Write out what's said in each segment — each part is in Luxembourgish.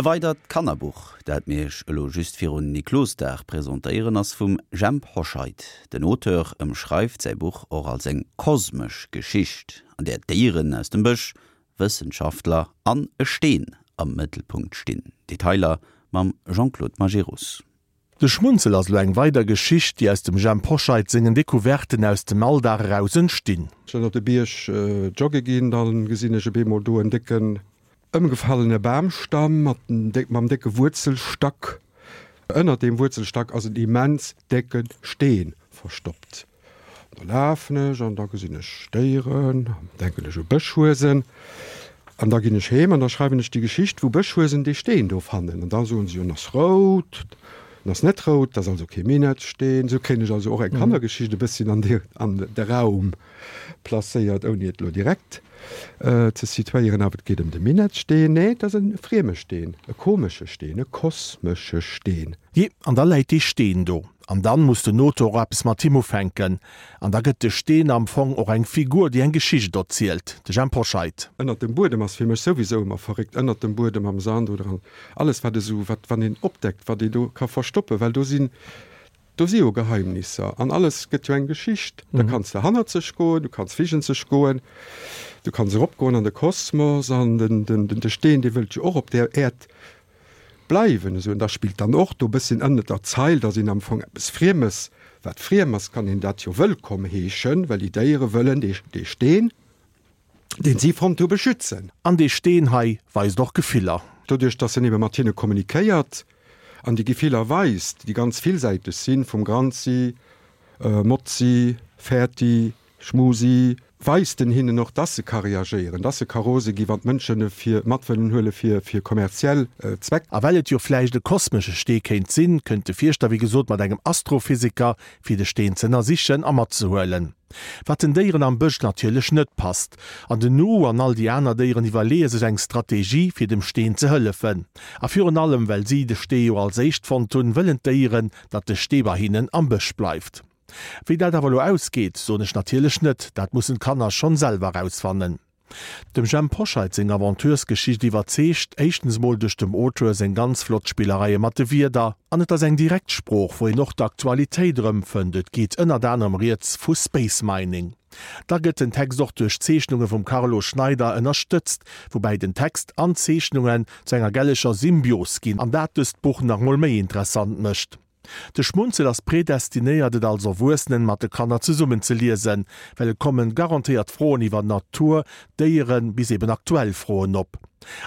E weidert Kannerbuch, dat mir iech elo just virun Niklosdag presentéieren, ass vum Jhemp Hoscheit. Den Auteur ëmschreift säi Buch och als eng kosmesch Geschicht, an där Déieren aus dem Bësch, Wëssenschaftler an e Steen am Mëttelpunkt stinn. Detailer mam Jean-Claude Majerus. De Schmunzel ass elo eng weider Geschicht, déi aus dem Jhemp Hoscheit sengen Decouverten aus dem Alldag eraus entstinn. Ech sinn op de Bierg jogge ginn, da gesinn ech op eemol do en décken Ëmgefallene Bamstamm mat mam décke Wuerzelstack. Ënnert deem Wuerzelstack ass en immens décke Steen verstoppt. Da lafen ech an da gesinn ech Déieren, denken ech u Bëschhuesen. An da ginn ech heem an da schreiwen ech déi Geschicht, wou Bëschhuesen dee Steen do fannen. An da soen se jo, en ass rout, en ass net rout, dat ass also kee Minettsteen. Esou kréien ech also och eng Kannergeschicht e bësschen an de Raum placéiert, ouni et elo direkt ze situéieren. Awer et geet ëm de Minettsteen. Nee, et ass e frieme Steen, e komesche Steen, e kosmesche Steen. Jee, an da läit dee Steen do. An dann muss den Auteur och eppes mat him ufänken. An da gëtt de Steen am Fong och eng Figur, déi eng Geschicht erzielt. De Jhemp Hoscheit. Ënnert dem Buedem ass fir mech souwisou ëmmer verréckt. Ënnert dem Buedem, am Sand oder an alles wat esou, wat, wann een opdeckt, wat ee do ka verstoppen, well do sinn Do si jo Geheimnisser an alles gëtt jo eng Geschicht. Da kanns de hannerzeg goen, du kanns vigenzeg goen, du kanns eropgoen an de Kosmos an den de Steen, dee wëllt jo och op där Äerd bleiwen. Esou, an da spillt dann och do e bësschen ënnert der Zeil, datt een am Fong eppes Friemes, wat friem ass, kann een dat jo wëllkomm heeschen, well déi Déiere wëllen dee Steen. deen si fonnt hu, beschützen. An dee Steen hei weist och Gefiller. Doduerch, dass en ebe mat hinne kommunikéiert an déi Gefiller weist, déi ganz villsäiteg sinn, vum Granzi, Motzi, Fäerti, Schmusi, weist en hinnen och, dass e ka reagéieren, dass e ka rose gi wann d'Mënschen e fir mat wëllen huele fir fir kommerziell Zweck. A well et jo vläicht e kosmesche Stee kéint sinn, kënnt de Fierschter wéi gesot mat engem Astrophysiker, fir de Steen z'ënnersichen a matzehuelen. Wat den Déieren am Bësch natierlech net passt. An den Nu an all déi aner Déieren iwwerleeë sech eng Strategie, fir dem Steen ze hëllefen. A virun allem, well si de Stee jo als éischt fonnt hunn, wëllen d'Déieren, datt de Stee bei hinnen am Bësch bleift. Wéi dat awer elo ausgeet, soen ech natierlech net, dat mussen d'Kanner schonn selwer erausfannen. Dem Jhemp Hoscheit seng Aventuresgeschicht iwwerzeegt, éischtens mol duerch dem Auteur seng ganz flott Spillereie mat de Wierder, an et ass eng direkt Sprooch, wou een och d'Aktualitéit erëmfënnt, et geet ënnert anerem rieds vu Space Mining. Da gëtt den Text och duerch Zeechnunge vum Carlo Schneider ënnerstëtzt, woubäi den Text an d'Zeechnungen zu enger gelleger Symbios ginn an dat dëst Buch nach mol méi interessant mécht. De Schmunzel ass predestinéiert et als Erwuessenen mat de Kanner zesummen ze liesen, well et kommen garantéiert Froen iwwer Natur, Déieren bis eben aktuell Froen op.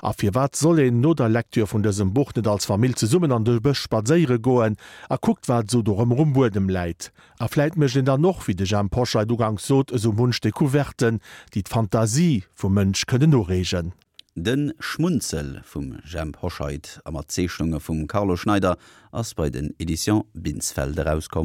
A firwat soll een no der Lektür vun dësem Buch net als Famill zesummen an de Bësch spadséiere goen a kuckt wat esou do rëm um Buedem läit? A vläit mécht een dann och, wéi de Jhemp Hoscheit uganks sot, esou munch Decouverten, déi d'Fantasie vum Mënsch kënnen ureegen. De Schmunzel vum Jhemp Hoscheit a mat Zeechnunge vum Carlo Schneider ass bei den Editions Binsfeld erauskomm.